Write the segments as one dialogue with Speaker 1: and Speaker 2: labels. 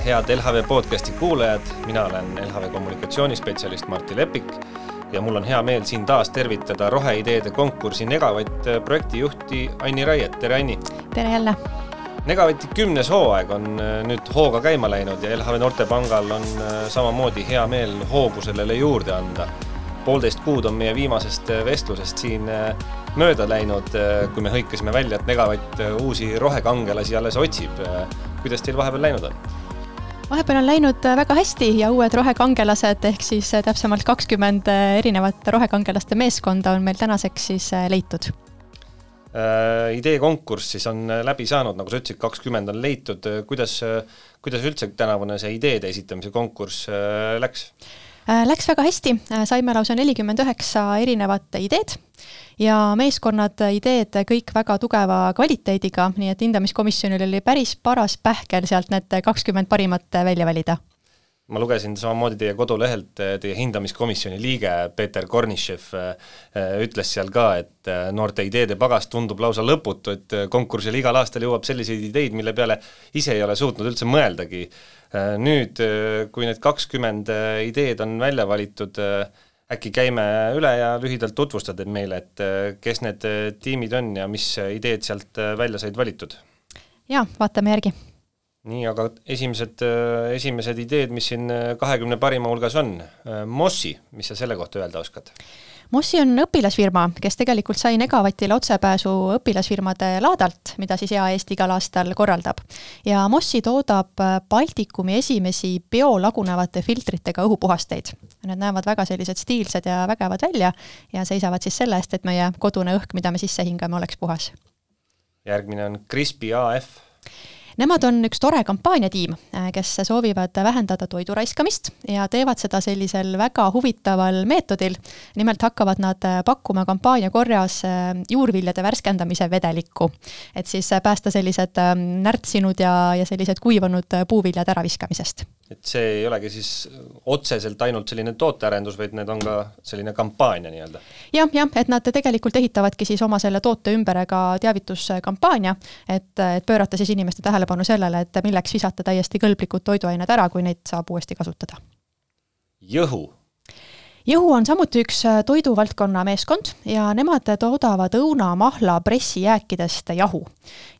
Speaker 1: head LHV podcasti kuulajad, mina olen LHV kommunikatsioonispetsialist Martti Lepik ja mul on hea meel siin taas tervitada roheideede konkursi Negavatt projektijuhti Anni Raiet. Tere Anni!
Speaker 2: Tere jälle!
Speaker 1: Negavati 10. hooaeg on nüüd hooga käima läinud ja LHV Noortepangal on samamoodi hea meel hoogu sellele juurde anda. 1,5 kuud on meie viimasest vestlusest siin mööda läinud, kui me hõikasime välja, et Negavatt uusi rohekangelasi alles otsib. Kuidas teil vahepeal läinud on?
Speaker 2: Vahepeal on läinud väga hästi ja uued rohekangelased ehk siis täpsemalt 20 erinevat rohekangelaste meeskonda on meil tänaseks siis leitud.
Speaker 1: Idee konkurss siis on läbi saanud, nagu sa ütlesid, 20 on leitud. Kuidas üldse tänavune see ideede esitamise konkurss läks?
Speaker 2: Läks väga hästi, saime lausa 49 erinevat ideed ja meeskonnad ideed kõik väga tugeva kvaliteediga, nii et hindamiskomisjonil oli päris paras pähkel sealt need 20 parimat välja valida.
Speaker 1: Ma lugesin samamoodi teie kodulehelt, teie hindamiskomisjoni liige Peeter Kornišev ütles seal ka, et noorte ideede pagas tundub lausa lõputu, et konkursil igal aastal jõuab selliseid ideid, mille peale ise ei ole suutnud üldse mõeldagi. Nüüd, kui need 20 ideed on välja valitud, äkki käime üle ja lühidalt tutvustad meile, et kes need tiimid on ja mis ideed sealt välja said valitud?
Speaker 2: Ja, vaatame järgi.
Speaker 1: Nii, aga esimesed ideed, mis siin 20 parima hulgas on. Mossi, mis sa selle kohta öelda oskad?
Speaker 2: Mossi on õpilasfirma, kes tegelikult sai Negavatile otsepääsu õpilasfirmade laadalt, mida siis EAS igal aastal korraldab. Ja Mossi toodab Baltikumi esimesi biolagunevate filtritega õhupuhasteid. Need näevad väga sellised stiilsed ja vägevad välja ja seisavad siis selle eest, et meie kodune õhk, mida me sisse hingame, oleks puhas.
Speaker 1: Järgmine on Crispy AF.
Speaker 2: Nemad on üks tore kampaaniatiim, kes soovivad vähendada toidu raiskamist ja teevad seda sellisel väga huvitaval meetodil. Nimelt hakkavad nad pakkuma kampaania korras juurviljade värskendamise vedelikku, et siis päästa sellised närtsinud ja sellised kuivanud puuviljad äraviskamisest.
Speaker 1: Et see ei olegi siis otseselt ainult selline tootearendus, vaid need on ka selline kampaania nii-öelda.
Speaker 2: Ja, et nad tegelikult ehitavadki siis oma selle toote ümber ka teavituskampaania, et pöörata siis inimeste tähelepanu sellele, et milleks visata täiesti kõlblikud toiduained ära, kui neid saab uuesti kasutada.
Speaker 1: Jõhu.
Speaker 2: Jõhu on samuti üks toiduvaldkonna meeskond ja nemad toodavad õuna, mahla, pressijääkidest jahu.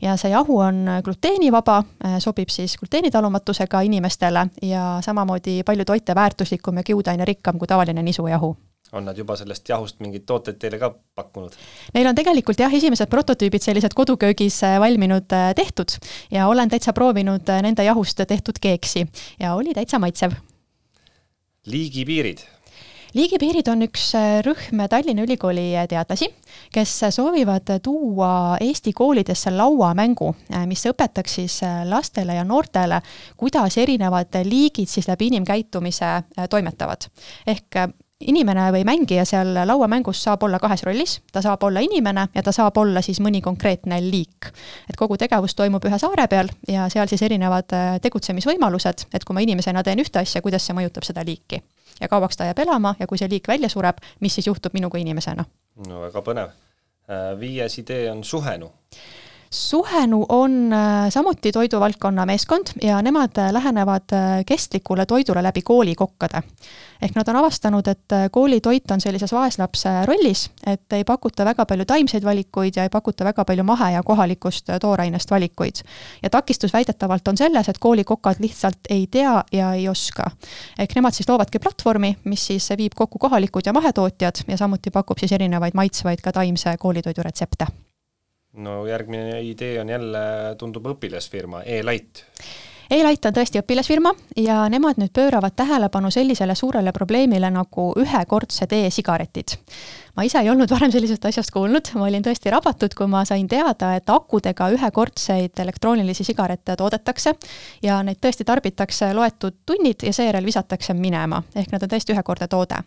Speaker 2: Ja see jahu on gluteenivaba, sobib siis gluteenitalumatusega inimestele ja samamoodi palju toite väärtuslikum ja kiudaine rikkam kui tavaline nisujahu.
Speaker 1: On nad juba sellest jahust mingid tooted teile ka pakkunud?
Speaker 2: Neil on tegelikult esimesed prototüübid sellised koduköögis valminud tehtud ja olen täitsa proovinud nende jahust tehtud keeksi ja oli täitsa maitsev.
Speaker 1: Liigipiirid.
Speaker 2: Liigipiirid on üks rühm Tallinna Ülikooli teadlasi, kes soovivad tuua Eesti koolidesse lauamängu, mis õpetaks siis lastele ja noortele, kuidas erinevad liigid siis läbi inimkäitumise toimetavad. Ehk inimene või mängija seal lauamängus saab olla 2 rollis, ta saab olla inimene ja ta saab olla siis mõni konkreetne liik. Et kogu tegevus toimub ühe saare peal ja seal siis erinevad tegutsemisvõimalused, et kui ma inimesena teen ühte asja, kuidas see mõjutab seda liiki. Ja kauaks ta jääb elama ja kui see liik välja sureb, mis siis juhtub minuga inimesena?
Speaker 1: No väga põnev. 5. idee on Suhenu.
Speaker 2: Suhenu on samuti toiduvaldkonna meeskond ja nemad lähenevad kestlikule toidule läbi koolikokkade. Ehk nad on avastanud, et koolitoit on sellises vaeslapse rollis, et ei pakuta väga palju taimseid valikuid ja ei pakuta väga palju mahe ja kohalikust toorainest valikuid. Ja takistus väidetavalt on selles, et koolikokad lihtsalt ei tea ja ei oska. Ehk nemad siis loovadki platvormi, mis siis viib kokku kohalikud ja mahetootjad ja samuti pakub siis erinevaid maitsvaid ka taimse koolitoidu retsepte.
Speaker 1: No järgmine idee on jälle tundub õpilasfirma, E-Light.
Speaker 2: E-Light on tõesti õpilasfirma ja nemad nüüd pööravad tähelepanu sellisele suurele probleemile nagu ühekordsed e-sigaretid. Ma ise ei olnud varem sellisest asjast kuulnud, ma olin tõesti rabatud, kui ma sain teada, et akudega ühekordseid elektroonilisi sigarette toodetakse ja neid tõesti tarbitakse loetud tunnid ja seejärel visatakse minema, ehk nad on tõesti ühekordne toode.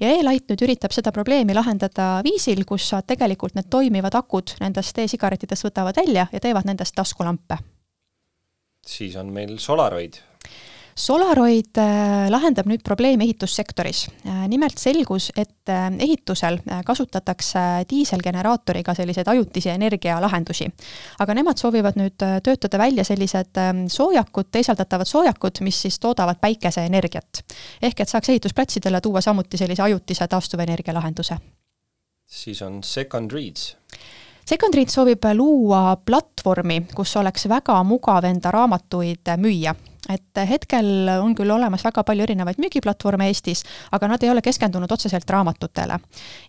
Speaker 2: Ja E-Light nüüd üritab seda probleemi lahendada viisil, kus tegelikult need toimivad akud nendest e-sigaretidest võtavad välja ja teevad nendest taskulampe.
Speaker 1: Siis on meil Solaroid.
Speaker 2: Solaroid lahendab nüüd probleemi ehitussektoris. Nimelt selgus, et ehitusel kasutatakse diiselgeneraatoriga selliseid ajutisi energialahendusi. Aga nemad soovivad nüüd töötada välja sellised soojakud, teisaldatavad soojakud, mis siis toodavad päikeseenergiat. Ehk et saaks ehitusplatsidele tuua samuti sellise ajutise taastuvenergia lahenduse.
Speaker 1: Siis on Second Reads.
Speaker 2: Second Reads soovib luua platvormi, kus oleks väga mugav enda raamatuid müüa. Et hetkel on küll olemas väga palju erinevaid müügiplatvorme Eestis, aga nad ei ole keskendunud otseselt raamatutele.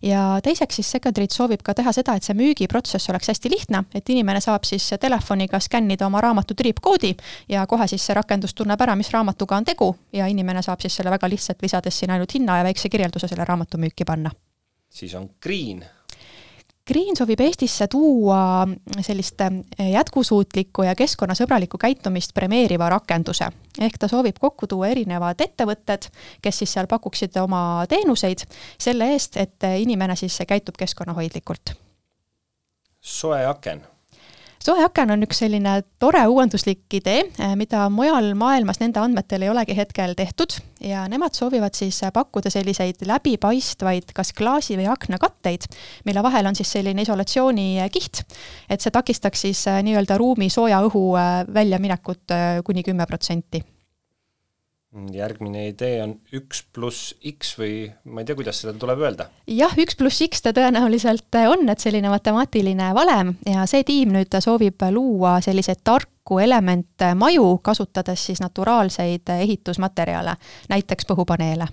Speaker 2: Ja teiseks siis Second Reads soovib ka teha seda, et see müügiprotsess oleks hästi lihtne, et inimene saab siis telefoniga skännida oma raamatu tripkoodi ja kohe siis see rakendus tunneb ära, mis raamatuga on tegu ja inimene saab siis selle väga lihtsalt lisades siin ainult hinna ja väikse kirjelduse selle raamatu müüki panna.
Speaker 1: Siis on Green.
Speaker 2: Green soovib Eestisse tuua sellist jätkusuutlikku ja keskkonnasõbralikku käitumist premeeriva rakenduse. Ehk ta soovib kokku tuua erinevad ettevõtted, kes siis seal pakuksid oma teenuseid selle eest, et inimene siis käitub keskkonnahoidlikult.
Speaker 1: Soe aken.
Speaker 2: Soe aken on üks selline tore uuenduslik idee, mida mujal maailmas nende andmetel ei olegi hetkel tehtud ja nemad soovivad siis pakkuda selliseid läbipaistvaid kas klaasi või aknakatteid, mille vahel on siis selline isolatsioonikiht, et see takistaks siis nii-öelda ruumi sooja õhu väljaminekut kuni 10%.
Speaker 1: Järgmine idee on 1+X või ma ei tea, kuidas seda tuleb öelda.
Speaker 2: Jah, 1+X ta tõenäoliselt on, et selline matemaatiline valem ja see tiim nüüd soovib luua selliseid tarku elemente maju, kasutades siis naturaalseid ehitusmaterjale, näiteks põhupaneele.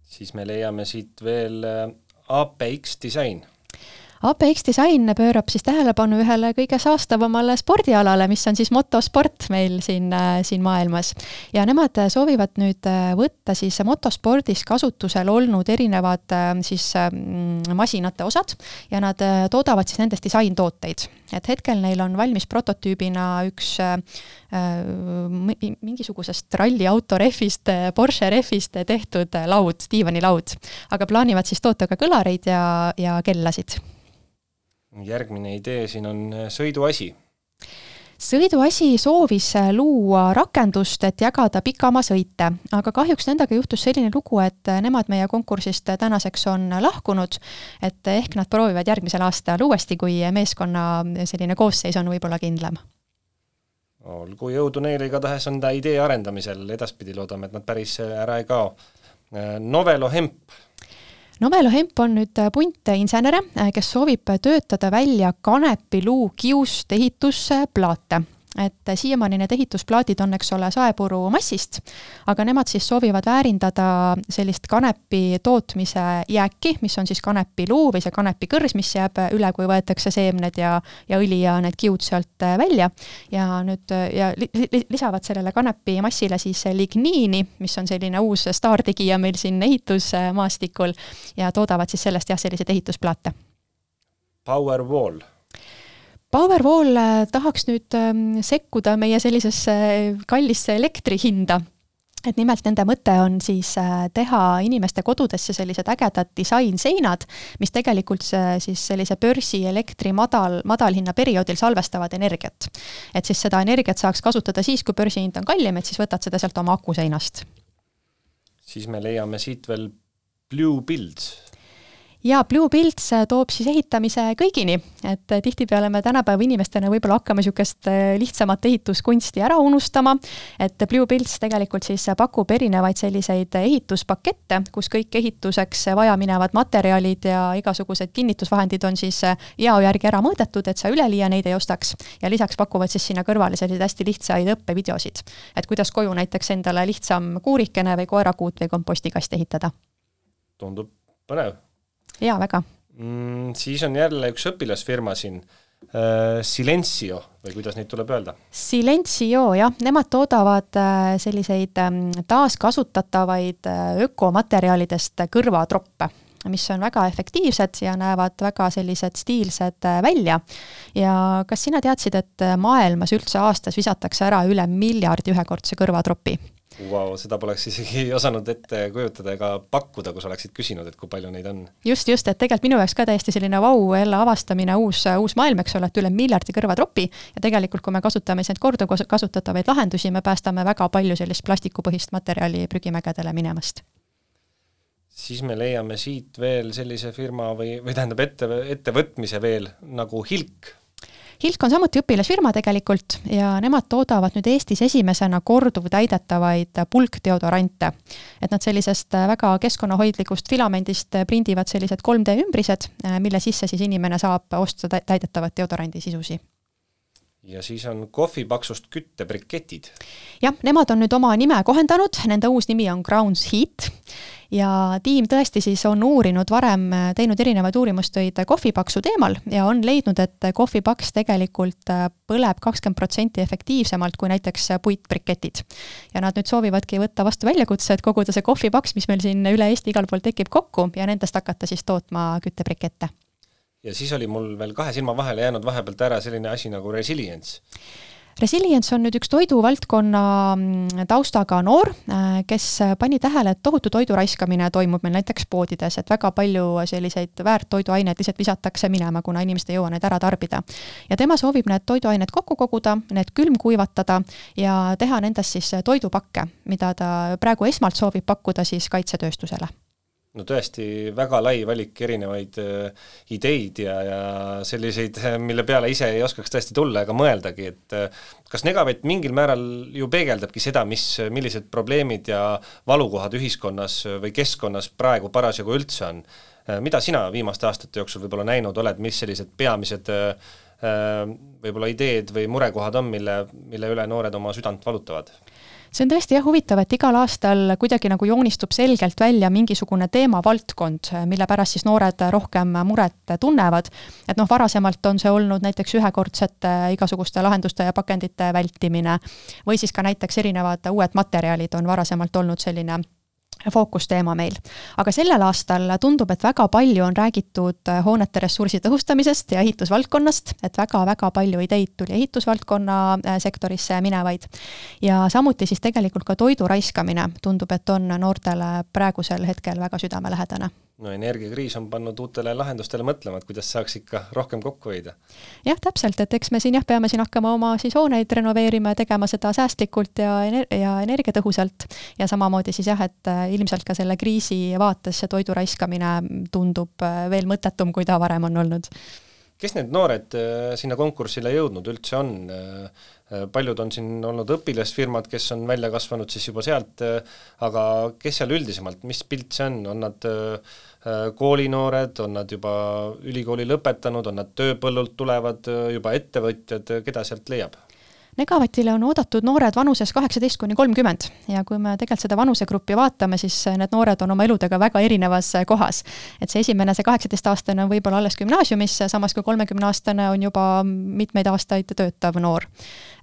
Speaker 1: Siis me leiame siit veel APX Design.
Speaker 2: APX Design pöörab siis tähelepanu ühele kõige saastavamale spordialale, mis on siis motosport meil siin maailmas. Ja nemad soovivad nüüd võtta siis motospordis kasutusel olnud erinevad siis masinate osad ja nad toodavad siis nendest disaintooteid. Et hetkel neil on valmis prototüübina üks mingisugusest ralliauto rehvist, Porsche rehvist tehtud laud, diivanilaud, aga plaanivad siis toota ka kõlareid ja kellasid.
Speaker 1: Järgmine idee siin on sõiduasi.
Speaker 2: Sõiduasi soovis luua rakendust, et jagada pikamaa sõite, aga kahjuks nendega juhtus selline lugu, et nemad meie konkursist tänaseks on lahkunud, et ehk nad proovivad järgmisel aastal uuesti, kui meeskonna selline koosseis on võib-olla kindlam.
Speaker 1: Olgu jõudu neile, igatahes on ta idee arendamisel, edaspidi loodame, et nad päris ära ei kao. Novelo Hemp.
Speaker 2: Novelo Hemp on nüüd punt insenere, kes soovib töötada välja kanepiluu kiust ehitusplaate. Et siiamaani need ehitusplaadid on, eks ole, saepuru massist, aga nemad siis soovivad väärindada sellist kanepi tootmise jääki, mis on siis kanepiluu või see kanepikõrs, mis jääb üle, kui võetakse seemned ja õli ja need kiud sealt välja ja nüüd ja lisavad sellele kanepi massile siis ligniini, mis on selline uus staartegija meil siin ehitusmaastikul ja toodavad siis sellest selliseid ehitusplaate.
Speaker 1: Powerwall.
Speaker 2: Powerwall tahaks nüüd sekkuda meie sellisesse kallisse elektrihinda. Et nimelt nende mõte on siis teha inimeste kodudesse sellised ägedad disainseinad, mis tegelikult siis sellise börsi elektri madalhinna perioodil salvestavad energiat. Et siis seda energiat saaks kasutada siis, kui börsihind on kallim, et siis võtad seda sealt oma akuseinast.
Speaker 1: Siis me leiame siit veel Blue Builds.
Speaker 2: Ja Blue Builds toob siis ehitamise kõigini, et tihtipeale me tänapäeva inimestena võib-olla hakkame niisugust lihtsamat ehituskunsti ära unustama, et Blue Builds tegelikult siis pakub erinevaid selliseid ehituspakette, kus kõik ehituseks vaja minevad materjalid ja igasugused kinnitusvahendid on siis jao järgi ära mõõdetud, et sa üleliia neid ei ostaks. Ja lisaks pakuvad siis sinna kõrvale selliseid hästi lihtsaid õppevideosid, et kuidas koju näiteks endale lihtsam kuurikene või koerakuut või kompostikast ehitada.
Speaker 1: Tundub põnev.
Speaker 2: Jaa, väga.
Speaker 1: Siis on jälle üks õpilasfirma siin, Silencio, või kuidas neid tuleb öelda?
Speaker 2: Silencio, jah. Nemad toodavad selliseid taaskasutatavaid ökomaterjalidest kõrvatroppe. mis on väga efektiivsed ja näevad väga sellised stiilsed välja. Ja kas sina teadsid, et maailmas üldse aastas visatakse ära üle 1 miljardi ühekordse kõrvatropi?
Speaker 1: Wow, seda poleks isegi osanud ette kujutada ega pakkuda, kus oleksid küsinud, et kui palju neid on.
Speaker 2: Just, et tegelikult minu jaoks ka täiesti selline jälle avastamine, uus maailm, eks ole, et üle 1 miljardi kõrvatropi ja tegelikult, kui me kasutame neid korduvkasutatavaid lahendusi, me päästame väga palju sellist plastikupõhist materjali prügimägedele minemast.
Speaker 1: Siis me leiame siit veel sellise firma või tähendab ettevõtmise veel nagu Hilk.
Speaker 2: Hilk on samuti õpilasfirma tegelikult ja nemad toodavad nüüd Eestis esimesena korduvtäidetavaid pulkdeodorante. Et nad sellisest väga keskkonnahoidlikust filamendist prindivad sellised 3D ümbrised, mille sisse siis inimene saab osta täidetavat deodorandi sisusi.
Speaker 1: Ja siis on kohvipaksust küttebriketid.
Speaker 2: Jah, nemad on nüüd oma nime kohendanud, nende uus nimi on Grounds Heat ja tiim tõesti siis on varem teinud erinevaid uurimustöid kohvipaksu teemal ja on leidnud, et kohvipaks tegelikult põleb 20% efektiivsemalt kui näiteks puitbriketid. Ja nad nüüd soovivadki võtta vastu väljakutse, et koguda see kohvipaks, mis meil siin üle Eesti igal pool tekib kokku ja nendest hakata siis tootma küttebrikette.
Speaker 1: Ja siis oli mul veel 2 silma vahele jäänud vahepealt ära selline asi nagu Resilience.
Speaker 2: Resilience on nüüd üks toiduvaldkonna taustaga noor, kes pani tähele, et tohutu toidu raiskamine toimub meil näiteks poodides, et väga palju selliseid väärtoiduaineid lihtsalt visatakse minema, kuna inimesed ei jõua need ära tarbida. Ja tema soovib need toiduained kokku koguda, need külmkuivatada ja teha nendest siis toidupakke, mida ta praegu esmalt soovib pakkuda siis kaitsetööstusele.
Speaker 1: No tõesti väga lai valik erinevaid ideid ja selliseid, mille peale ise ei oskaks tõesti tulla ega mõeldagi, et kas Negavett mingil määral ju peegeldabki seda, millised probleemid ja valukohad ühiskonnas või keskkonnas praegu parasjagu üldse on. Mida sina viimaste aastate jooksul võib-olla näinud oled, mis sellised peamised võib-olla ideed või murekohad on, mille üle noored oma südant valutavad?
Speaker 2: See on tõesti huvitav, et igal aastal kuidagi nagu joonistub selgelt välja mingisugune teemavaldkond, mille pärast siis noored rohkem muret tunnevad. Et varasemalt on see olnud näiteks ühekordsete igasuguste lahenduste ja pakendite vältimine või siis ka näiteks erinevad uued materjalid on varasemalt olnud selline fookusteema meil. Aga sellel aastal tundub, et väga palju on räägitud hoonete ressursi tõhustamisest ja ehitusvaldkonnast, et väga palju ideid tuli ehitusvaldkonna sektorisse minevaid. Ja samuti siis tegelikult ka toidu raiskamine tundub, et on noortele praegusel hetkel väga südamelähedane.
Speaker 1: No energiakriis on pannud uutele lahendustele mõtlema, et kuidas saaks ikka rohkem kokku hoida.
Speaker 2: Jah, täpselt, et eks me peame hakkama oma siis hooneid renoveerima ja tegema seda säästlikult ja energiatõhusalt. Ja samamoodi siis et ilmselt ka selle kriisi vaates see toidu raiskamine tundub veel mõttetum, kui ta varem on olnud.
Speaker 1: Kes need noored sinna konkursile jõudnud üldse on? Paljud on siin olnud õpilasfirmad, kes on välja kasvanud siis juba sealt, aga kes seal üldisemalt, mis pilt see on? On nad koolinoored, on nad juba ülikooli lõpetanud, on nad tööpõllult tulevad juba ettevõtjad, keda sealt leiab?
Speaker 2: Negavatile on oodatud noored vanuses 18–30 ja kui me tegelikult seda vanusegruppi vaatame, siis need noored on oma eludega väga erinevas kohas. Et see 18-aastane on võib-olla alles gümnaasiumis, samas kui 30-aastane on juba mitmeid aastaid töötav noor.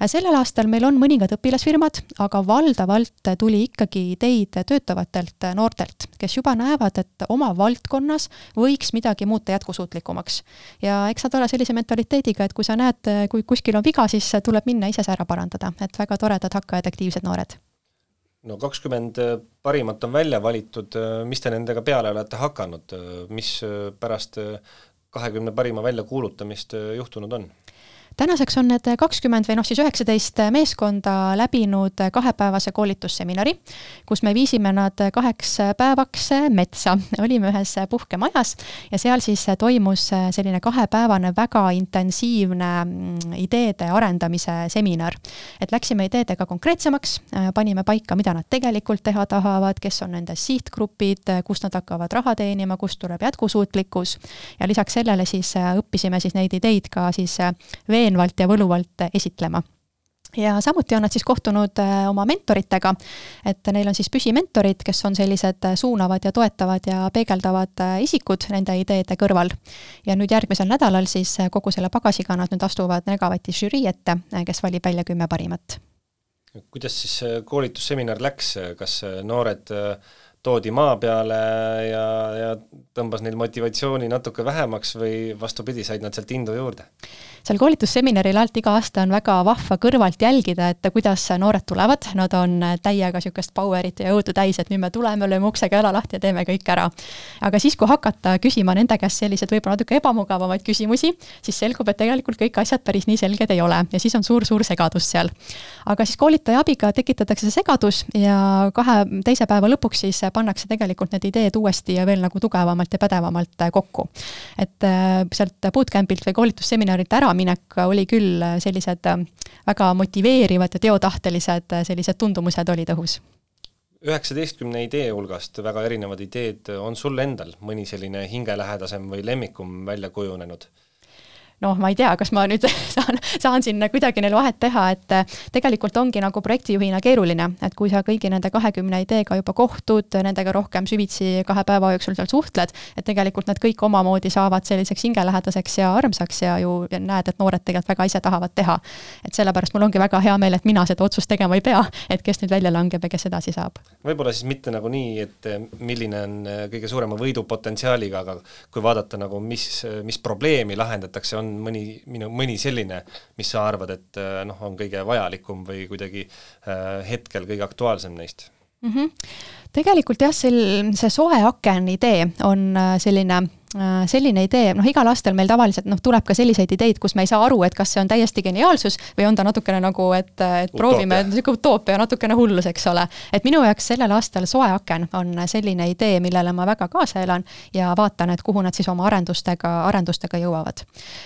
Speaker 2: Sellel aastal meil on mõningad õpilasfirmad, aga valdavalt tuli ikkagi ideid töötavatelt noortelt, kes juba näevad, et oma valdkonnas võiks midagi muuta jätkusuutlikumaks. Ja eks saad olla sellise mentaliteediga, et kui sa näed, kui kuskil on viga, siis tuleb minna ise ära parandada, et väga toredad hakkajad aktiivsed noored.
Speaker 1: No 20 parimat on välja valitud, mis te nendega peale olete hakanud, mis pärast 20 parima välja kuulutamist juhtunud on?
Speaker 2: Tänaseks on need 20 või siis 19 meeskonda läbinud 2-päevase koolitusseminari, kus me viisime nad 2 päevaks metsa. Olime ühes puhkemajas ja seal siis toimus selline 2-päevane väga intensiivne ideede arendamise seminar. Et läksime ideedega konkreetsemaks, panime paika, mida nad tegelikult teha tahavad, kes on nende sihtgrupid, kust nad hakkavad raha teenima, kust tuleb jätkusuutlikkus ja lisaks sellele siis õppisime siis neid ideid ka siis veenvalt ja võluvalt esitlema. Ja samuti on nad siis kohtunud oma mentoritega, et neil on siis püsimentorid, kes on sellised suunavad ja toetavad ja peegeldavad isikud nende ideede kõrval. Ja nüüd järgmisel nädalal siis kogu selle pagasiga nad nüüd astuvad Negavati žürii ette, kes valib välja 10 parimat.
Speaker 1: Kuidas siis koolitusseminar läks, kas noored toodi maa peale ja tõmbas neil motivatsiooni natuke vähemaks või vastupidi, said nad sealt indu juurde?
Speaker 2: Seal koolitusseminaril alt iga aasta on väga vahva kõrvalt jälgida, et kuidas noored tulevad, nad on täiega sükest powerit ja jõudu täis, et nüüd me tuleme, lööme uksega jala lahti ja teeme kõik ära. Aga siis, kui hakata küsima nende käest sellised võib-olla natuke ebamugavamaid küsimusi, siis selgub, et tegelikult kõik asjad päris nii selged ei ole ja siis on suur segadus seal. Aga siis koolitaja abiga tekitatakse see segadus ja 2 teise päeva lõpuks siis pannakse tegelikult need ideed uuesti ja veel nagu tugevamalt ja pädevamalt kokku. Et sealt bootcampilt või koolitusseminarilt ära minek oli küll sellised väga motiveerivad ja teotahtelised sellised tundumused olid õhus.
Speaker 1: 19 idee hulgast väga erinevad ideed, on sul endal mõni selline hingelähedasem või lemmikum välja kujunenud?
Speaker 2: noh, ma ei tea, kas ma nüüd saan siin kuidagi neil vahet teha, et tegelikult ongi nagu projektijuhina keeruline, et kui sa kõigi nende 20 ideega juba kohtud, nendega rohkem süvitsi 2 päeva jooksul seal suhtled, et tegelikult nad kõik omamoodi saavad selliseks hingelähedaseks ja armsaks ja ju näed, et noored tegelikult väga ise tahavad teha. Et sellepärast mul ongi väga hea meel, et mina seda otsust tegema ei pea, et kes nüüd välja langeb ja kes edasi saab.
Speaker 1: Võib-olla siis mitte nagu nii, et milline on kõige suurema võidupotentsiaaliga, aga kui vaadata nagu mis probleemi lahendatakse, on mõni selline, mis sa arvad, et on kõige vajalikum või kuidagi hetkel kõige aktuaalsem neist?
Speaker 2: Tegelikult jah, see soe aken idee on selline idee, igal aastal meil tavaliselt tuleb ka selliseid ideid, kus me ei saa aru, et kas see on täiesti geniaalsus või on ta natukene nagu, et proovime, utoopia natukene hullus, eks ole. Et minu jaoks sellel aastal soe aken on selline idee, millele ma väga kaasa elan ja vaatan, et kuhu nad siis oma arendustega jõuavad.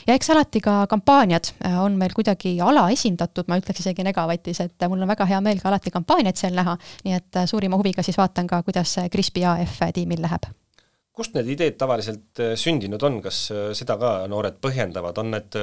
Speaker 2: Ja eks alati ka kampaaniad on meil kuidagi alaesindatud, ma ütleks isegi Negavatis, et mul on väga hea meel ka alati kampaaniaid seal näha, nii et suurima huviga siis vaatan ka, kuidas Crispy AF tiimil läheb.
Speaker 1: Kust need ideed tavaliselt sündinud on? Kas seda ka noored põhjendavad? On need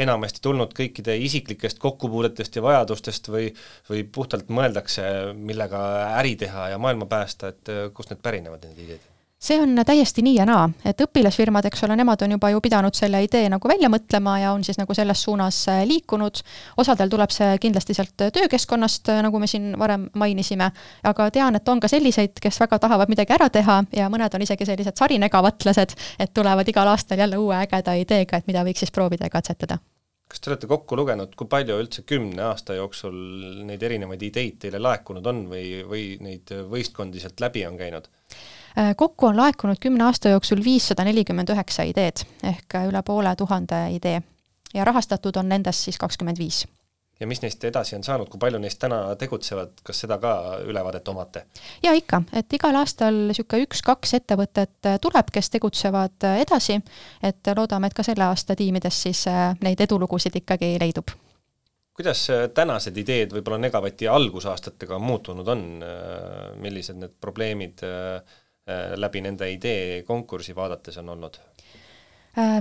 Speaker 1: enamasti tulnud kõikide isiklikest kokkupuudetest ja vajadustest või puhtalt mõeldakse, millega äri teha ja maailma päästa, et kust need pärinevad need ideed?
Speaker 2: See on täiesti nii ja naa, et õpilasfirmad, eks ole, nemad on juba ju pidanud selle idee nagu välja mõtlema ja on siis nagu selles suunas liikunud. Osadel tuleb see kindlasti sealt töökeskkonnast, nagu me siin varem mainisime, aga tean, et on ka selliseid, kes väga tahavad midagi ära teha ja mõned on isegi sellised sarinegavaatlased, et tulevad igal aastal jälle uue ägeda ideega, et mida võiks siis proovida ja katsetada.
Speaker 1: Kas te olete kokku lugenud, kui palju üldse 10 aasta jooksul neid erinevaid ideid teile laekunud on või neid võistkondi sealt läbi on käinud?
Speaker 2: Kokku on laekunud 10 aasta jooksul 549 ideed ehk üle 500 idee ja rahastatud on nendest siis 25.
Speaker 1: Ja mis neist edasi on saanud, kui palju neist täna tegutsevad, kas seda ka ülevaadet omate?
Speaker 2: Ja ikka, et igal aastal 1-2 ettevõtet tuleb, kes tegutsevad edasi, et loodame, et ka selle aasta tiimides siis neid edulugusid ikkagi leidub.
Speaker 1: Kuidas tänased ideed võib-olla Negavati algusaastatega muutunud on? Millised need probleemid läbi nende idee konkursi vaadates on olnud?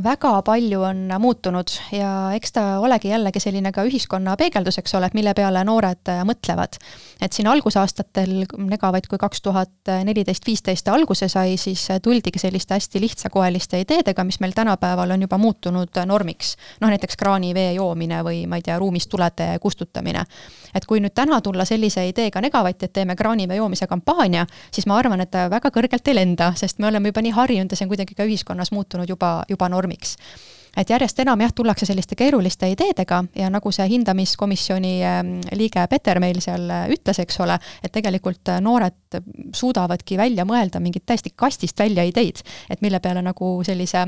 Speaker 2: Väga palju on muutunud ja eks ta olegi jällegi selline ka ühiskonna peegeldus, eks ole, et mille peale noored mõtlevad. Et siin algusaastatel Negavait, kui 2014-15 alguse sai, siis tuldigi selliste hästi lihtsakoeliste ideedega, mis meil tänapäeval on juba muutunud normiks. Näiteks kraanivee joomine või ma ei tea, ruumist tulede kustutamine. Et kui nüüd täna tulla sellise ideega Negavait, et teeme kraanivee joomise kampaania, siis ma arvan, et väga kõrgelt ei lenda, sest me oleme juba nii harjunud ja see on kuidagi ka ühiskonnas muutunud juba normiks. Et järjest enam tullakse selliste keeruliste ideedega ja nagu see hindamiskomisjoni liige Peter meil seal ütles, eks ole, et tegelikult noored suudavadki välja mõelda mingit täiesti kastist välja ideid, et mille peale nagu sellise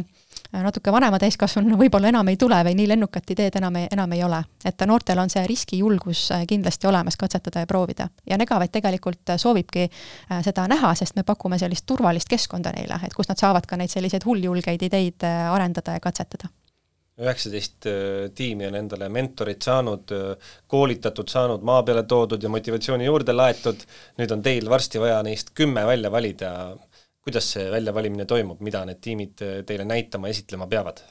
Speaker 2: natuke vanema täiskasvanu võib-olla enam ei tule või nii lennukat ideed enam ei ole. Et noortel on see riskijulgus kindlasti olemas katsetada ja proovida. Ja Negavait tegelikult soovibki seda näha, sest me pakume sellist turvalist keskkonda neile, et kus nad saavad ka neid selliseid hulljulgeid ideid arendada ja katsetada.
Speaker 1: 19 tiimi on endale mentorid saanud, koolitatud saanud, maa peale toodud ja motivatsiooni juurde laetud. Nüüd on teil varsti vaja neist 10 välja valida. Kuidas see väljavalimine toimub, mida need tiimid teile näitama, esitlema peavad?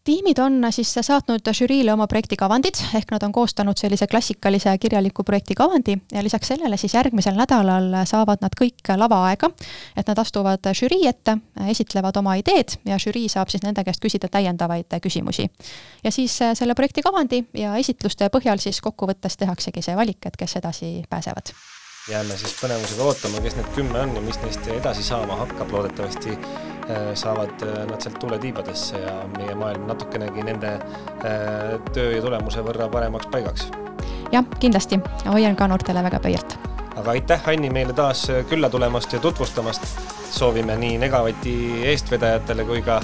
Speaker 2: Tiimid on siis saatnud žüriile oma projektikavandid, ehk nad on koostanud sellise klassikalise kirjaliku projektikavandi ja lisaks sellele siis järgmisel nädalal saavad nad kõik lavaaega, et nad astuvad žürii ette, esitlevad oma ideed ja žürii saab siis nende käest küsida täiendavaid küsimusi. Ja siis selle projektikavandi ja esitluste põhjal siis kokkuvõttes tehaksegi see valik, et kes edasi pääsevad.
Speaker 1: jääme siis põnevusega ootama, kes need 10 on ja mis neist edasi saama hakkab. Loodetavasti saavad nad sealt tuuletiibadesse ja meie maailm natukenegi nende töö ja tulemuse võrra paremaks paigaks.
Speaker 2: Jah, kindlasti. Hoian ka noortele väga pöialt.
Speaker 1: Aga aitäh, Anni, meile taas külla tulemast ja tutvustamast. Soovime nii Negavati eestvedajatele kui ka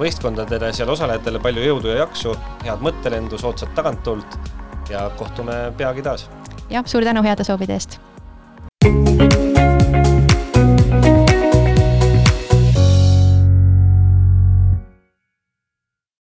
Speaker 1: võistkondadele, seal osalejatele palju jõudu ja jaksu, head mõttelendu, soodsat tagantult ja kohtume peagi taas.
Speaker 2: Jah, suur tänu heade soovide eest!